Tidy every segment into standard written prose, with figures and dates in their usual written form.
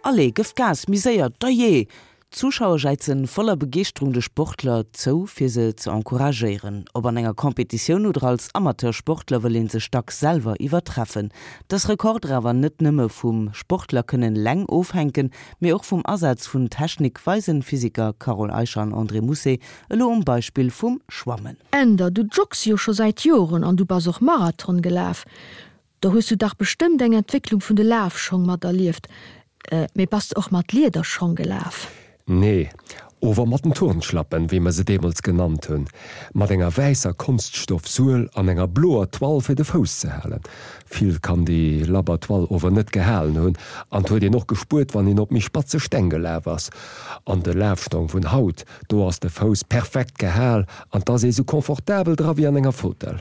Allez, gëff Gas, méi séier, dajee! D'Zuschauer jäizen voller Begeeschterung de Sportler zou, fir se ze encouragéieren. Ob an enger Competitioun oder als Amateursportler wëll een sech dacks selwer iwwertreffen. Dass Rekorder awer net nëmme vum Sportler kënnen eleng ofhänken, mee och vum Asaz vun Technik, weisen Physiker Carole Eicher an André Mousset elo um Beispill vum Schwammen. Änder, du joggs jo scho säit Joren an du bass och Marathon gelaf. Do hues du dach bestëmmt eng Entwécklung vun de Lafschong mat erlieft. Mee bass de och mat Liederschong gelaf? Nee, ower mat den Turnschlappen, wéi mer se deemools genannt hunn. Mat enger wäisser Konststoff-Suel an enger bloer Toile fir de Fouss ze halen. Vill kann déi labber Toile ower net gehalen hunn, an 't huet een och gespuert, wann een op méi spatze Steng gelaf ass. An de Lafstong vun haut, do ass de Fouss perfekt gehal an 't ass ee sou confortabel dra wéi an enger Fotell.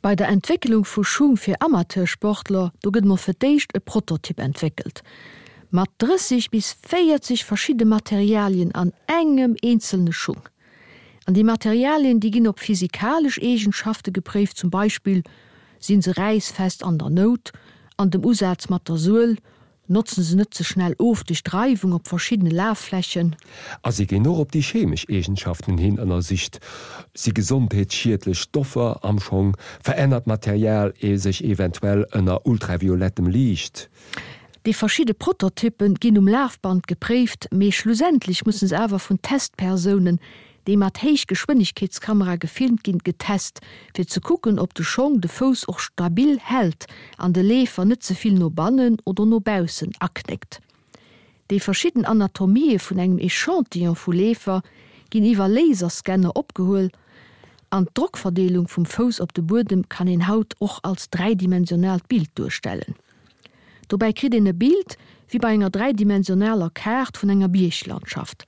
Bei der Entwécklung vu Schung fir Amateursportler, do gëtt mol fir d'éischt e Prototyp entwéckelt, mat 30 bis 40 verschidde Materialien an engem eenzelne Schung. An déi Materialien, déi ginn op physikalesch Eegenschafte gepréift, zum Beispill sinn se räissfest an der Nout, an dem Usaz mat der Suel, Notzen se net ze schnell of duerch d'Reiwung op verschiddene Lafflächen. A si ginn och op déi chemesch Eegenschaften hin ënnersicht. Si gesondheetsschiedlech Stoffer am Schong? Verännert d'Material sech eventuell ënner ultraviolettem Liicht? Déi verschidde Prototyppe ginn um Lafband gepréift, mee schlussendlech musse se awer vun Testpersounen, déi mat Héichgeschwënnegkeetskamera gefilmt ginn, getest, fir ze kucken, ob de Schong de Fouss och stabil hält an de Leefer net ze vill no bannen oder no baussen aknéckt. Déi verschidden Anatomië vun engem Echantillon vu Leefer ginn iwwer Laserscanner opgehuel an d'Drockverdeelung vum Fouss op de Buedem kann een haut och als dräidimensionaalt Bild duerstellen. Dobäi kritt een e Bild wéi bei enger dräidimensionaler Kaart vun enger Bierglandschaft.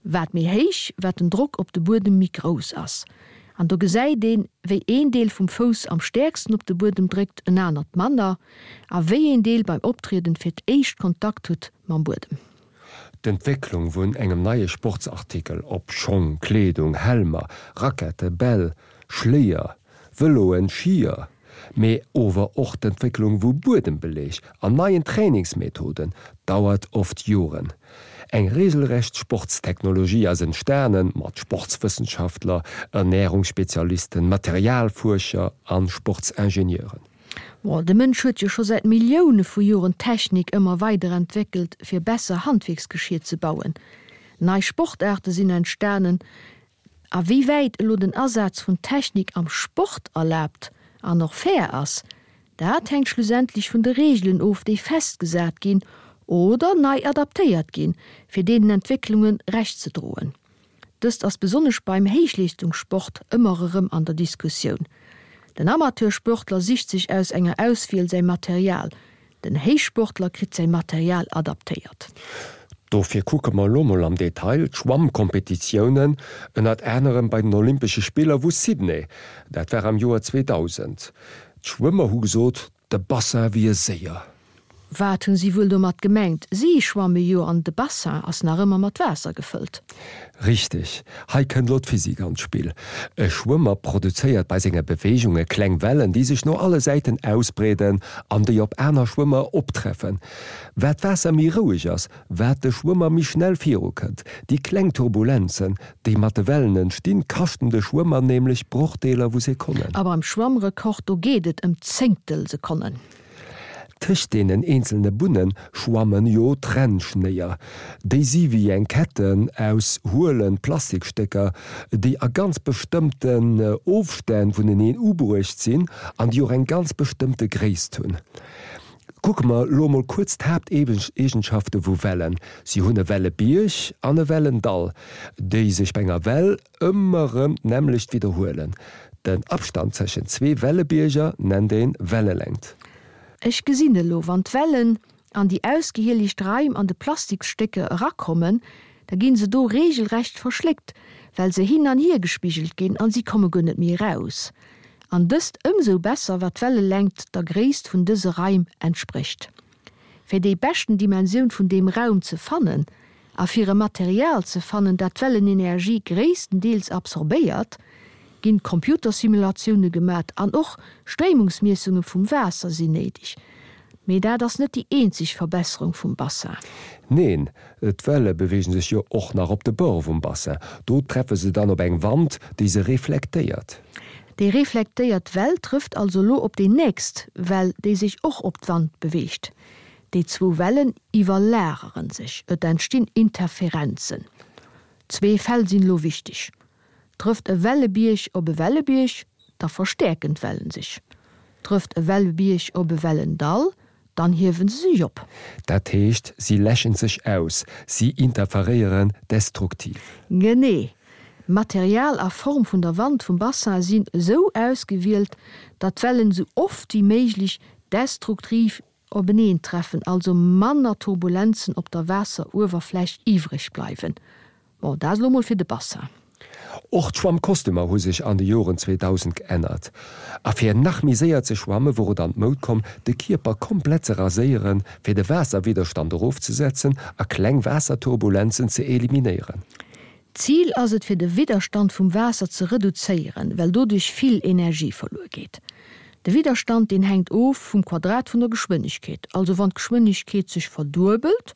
Wat méi héich, wat den Drock op de Buedem méi grouss ass. An do gesäit een, wéi een Deel vum Fouss am stäerksten op de Buedem dréckt, en anert manner, a wéi een Deel beim Optrieden fir d'éischt Kontakt huet mam Buedem. D'Entwécklung vun engem neie Sportsartikel, ob Schong, Kleedung, Helmer, Rackette, Bäll, Schléier, Vëloen, Skier, mee ower och d'Entwécklung vu Buedembeleg an neien Trainingsmethoden dauert oft Joren. Eng regelrecht Sportstechnologie ass entstanen, mat Sportswëssenschaftler, Ernährungsspezialisten, Materialfuerscher an Sportsingenieuren. Bon, de Mënsch huet jo scho säit Millioune vu Joren d'Technik ëmmer weiderentwéckelt, fir besser Handwierksgeschier ze bauen. Nei Sportaarte sinn entstanen, A wéi wäit elo den Asaz vun Technik am Sport erlaabt an och fair ass, dat hänkt schlussendlech vun de Reegelen of, déi festgesat ginn oder nei adaptéiert ginn, fir deenen Entwécklunge Recht ze droen. Dëst ass besonnesch beim Héichleeschtungssport ëmmer erëm an der Diskussioun. Den Amateursportler sicht sech aus enger Auswiel säi Material, Den Héichsportler kritt säi Material adaptéiert. Dofir kucke mer elo mol am Detail d'Schwammkompetitiounen, ënnert anerem bei den Olympesche Spiller vu Sydney, dat war am Joer 2000. D'Schwëmmer hu gesot, de Bassin wier séier. Wat hunn si wuel domat gemengt? Si schwamme jo an de Bassin ass nach ëmmer mat Waasser gefëllt. Richteg, hei kënnt lo d'Physik an d'Spill. E Schwëmmer produzéiert bei senge Beweegunge kleng Wellen, déi sech no alle Säiten ausbreeden an déi op aner Schwëmmer optreffen. Wat d'Waasser méi roueg ass, wat de Schwëmmer méi schnell viru kënnt. Déi kleng Turbulenzen, déi mat de Wellen entstinn, kaschten de Schwëmmer nämlech Brochdeeler vu Sekonnen. A beim Schwammrekord, do geet et ëm Zéngtelsekonnen. Tëscht deenen eenzelne Bunne schwammen jo Trennschnéier. Déi si wéi eng Ketten aus huelen Plastikstécker, déi a ganz bestëmmten Ofstänn vuneneen ubruecht sinn an déi och eng ganz bestëmmte Gréisst hunn. Kucke mer lo mol kuerz d'Haapteegenschafte vu Wellen. Si hunn e Wellebierg an e Wellendall, déi sech bei enger Well Ëmmer rëm d'nämmlecht widderhuelen. Den Abstand tëschent zwee Wellebierger nennt een Wellelängt. Ech gesinn elo, wann d'Wellen an déi ausgehielegt Raim an de Plastiksstécker erakommen, da ginn se do regelrecht verschléckt, well se hin an hier gespigelt ginn an si komme guer net méi eraus. An dëst ëmsou besser, wat d'Wellelängt der Gréisst vun dëse Raim entsprécht. Fir déi beschten Dimensioun vun deem Raum ze fannen a fir e Material ze fannen, dat d'Wellenenergie gréisstendeels absorbéiert, ginn Computersimulatioune gemat an och Stréimungsmiessunge vum Waasser sinn néideg. Mee dat ass net déi eenzeg Verbesserung vum Bassin. Neen, d'Welle beweegen sech jo och nach op de Bord vum Bassin. Do treffe se dann op eng Wand, déi se reflektéiert. Déi reflektéiert Well trëfft also lo op déi nächst Well, déi sech och op d'Wand beweegt. Déi zwou Wellen iwwerlageren sech, et entstinn Interferenzen. Zwee Fäll sinn elo wichteg, Trëfft e Wellebierg op e Wellebierg, da verstäerken d'Wellen sech. Trëfft e Wellebierg op e Wellendall, dann hiewe se sech op. Dat heescht, si läschen sech aus, si interferéieren destruktiv. Genee. Material a Form vun der Wand vum Bassin sinn esou ausgewielt, datt d'Wellen esou oft wéi méiglech destruktiv openeentreffen, also manner Turbulenzen op der Waasseruewerfläch iwwreg bleiwen. Bon, dat elo mol fir de Bassin. Och d'Schwammkostümer hu sech an de Joren 2000 geännert. A fir nach méi séier ze schwamme wor et an d'Moud komm, de Kierper komplett ze raséieren, fir de Waasserwidderstand erofzesetzen a kleng Waasserturbulenzen ze eliminéieren. D'Zil ass et fir de Widderstand vum Waasser ze reduzéieren, well doduerch vill Energie verluer geet. De Widderstand deen hänkt of vum Quadrat vun der Geschwënnegkeet, also wann d'Geschwënnegkeet sech verduebelt,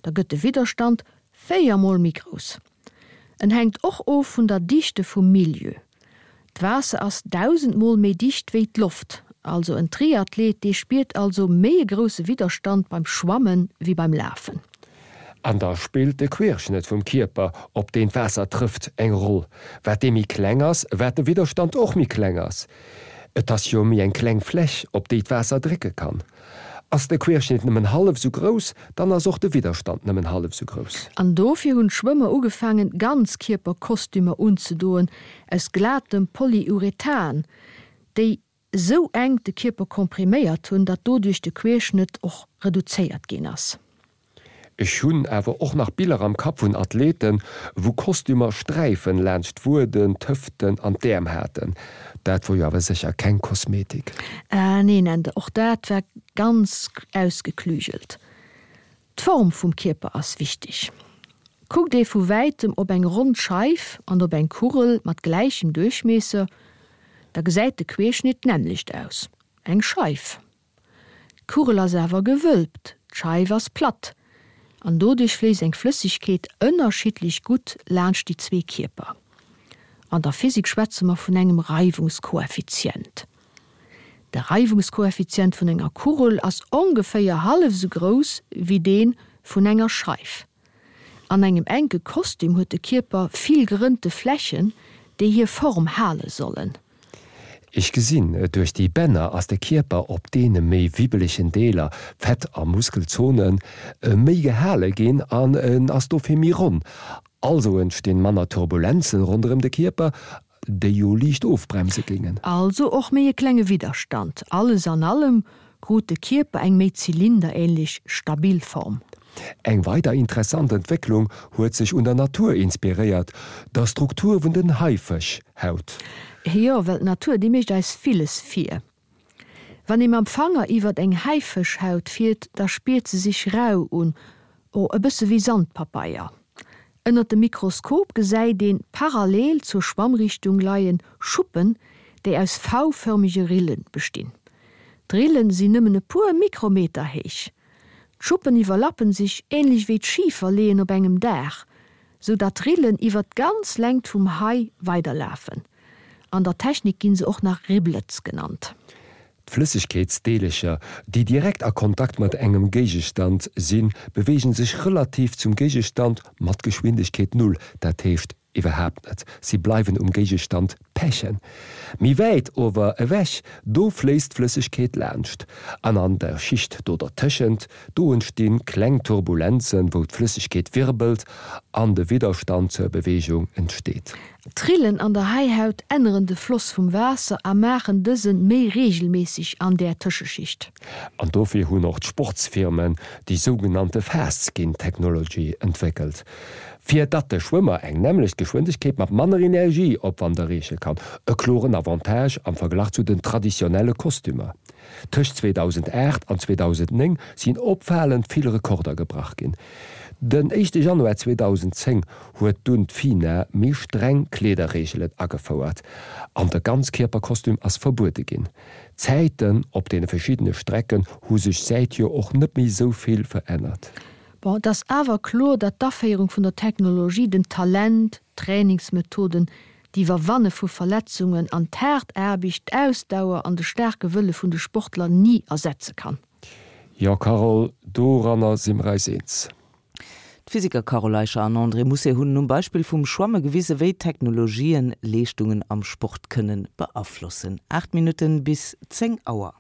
da gëtt de Widderstand 4 mol méi grouss. En hänkt och of vun der Dichte vum Milieu. D'Waasser ass 1000 mol méi dicht wéi d'Loft, also en Triathlet dee spiert also méi e grousse Widderstand beim Schwammen wéi beim Lafen. An da spillt de Querschnëtt vum Kierper, op deen d'Waasser trëfft, eng Roll. Wat dee méi kleng ass, wat de Widderstand och méi kleng ass. Et ass jo méi eng kleng Fläch, op déi d'Waasser drécke kann. Ass de Querschnitt nëmmen hallef sou grouss, dann ass och de Widderstand nëmmen hallef sou grouss. An dofir hunn d'Schwëmmer ugefaangen Ganzkierperkostümer unzedoen aus glatem Polyurethan, déi sou enk de Kierper kompriméiert hunn, datt doduerch de Querschnëtt och reduzéiert ginn ass. Ech hunn awer och nach Biller am Kapp vun Athleten, wou Kostümer Sträifen laanscht d'Wueden, d'Hëften an d'Äerm haten. Dat wor jo awer sécher keng Kosmetik. Ah neen, Ende, och dat war ganz ausgeklügelt. D'Form vum Kierper ass wichteg. Kuckt ee vu wäitem op eng ronn Scheif an op eng Kugel mat gläichem Duerchmiesser, da gesäit de Querschnitt d'nämmlecht aus, eng Scheif. D'Kugel ass awer gewölbt, d'Scheif ass platt an doduerch fléisst eng Flëssegkeet ënnerschiddlech gutt laanscht déi zwee Kierper. An der Physik schwätze mer vun engem Reiwungskoeffizient. De Reiwungskoeffizient vun enger Kugel ass ongeféier hallef esou grouss wéi dee vun enger Scheif. An engem enke Kostüm huet de Kierper vill gerënnte Flächen, déi hir Form hale sollen. Ech gesinn, duerch déi Bänner ass de Kierper op deene méi wibbelegen Deeler, Fett a Muskelzonen, méi gehale ginn an en ass dofir méi ronn. Also entstinn manner Turbulenzen ronderëm de Kierper, déi jo liicht ofbremse géingen. Also och méi e klenge Widderstand. Alles an allem krut de Kierper eng méi zylinderähnlech stabil Form. Eng weider interessant Entwécklung huet sech un der Natur inspiréiert, der Struktur vun den Haifëschhaut. Jo, well d'Natur, déi mécht eis villes vir. Wann ee mam Fanger iwwert eng Haifëschhaut fiert, da spiert se sech rau un, oh, e bësse wéi Sandpapeier. Ënnert dem Mikroskop gesäit een parallel zur Schwammrichtung leien Schuppen, déi aus V-förmege Rille bestinn. D'Rillen sinn nëmmen e puer Mikrometer héich. D'Schuppen iwwerlappen sech änlech wéi d'Schiferleeën op engem Daach, sou datt d'Rillen iwwer d'ganz Längt vum Hai weiderlafen. An der Technik ginn se och nach Riblets genannt. D'Flëssegkeetsdeelercher, déi direkt a Kontakt mat engem Géigestand sinn, beweegen sech relativ zum Géigestand mat Geschwindegkeet Null, dat heescht iwwerhaapt net, si bleiwen um Géigestand pechen. Méi wäit ower ewech, do fléisst d'Flëssegkeet laanscht, an an der Schicht do dertëschent, do entsti kleng Turbulenzen, wou d'Flëssegkeet wirbelt an de Widderstand zur Beweegung entsteet. D'Rillen an der Haihaut änneren de Floss vum Waasser a maachen dësen méi reegelméisseg an där Tëscheschicht. An dofir hunn och d'Sportsfirmen déi sougenannte Fast Skin Technology entwéckelt, fir datt de Schwëmmer eng nämmlecht Geschwindegkeet mat manner Energieopwand erreeche kann, e kloren Avantage am Verglach zu den traditionelle Kostümer. Tëscht 2008 an 2009 sinn opfalend vill Rekorder gebrach ginn. Den éischte Januar 2010 huet dunn d'FINA méi streng Kleederreegelen agefouert an de Ganzkierperkostüm ass verbuede ginn. D'Zäiten op deene verschiddene Strecken hu sech säithier och net méi esou vill verännert. Bon, et ass awer kloer, datt d'Aféierung vun der Technologie den Talent, d'Trainingsmethoden, d'Iwwerwanne vu Verletzungen an d'haart Aarbecht, d'Ausdauer an de staarke Wëlle vun de Sportler ni ersetze kann. Jo Carole, doranner si mer eis eens. D'Physiker Carole Eicher an André Mousset hunn um Beispill vum Schwamme gewise wéi Technologien Leeschtungen am Sport kënnen beaflossen. 8 Minutten bis 10 Auer.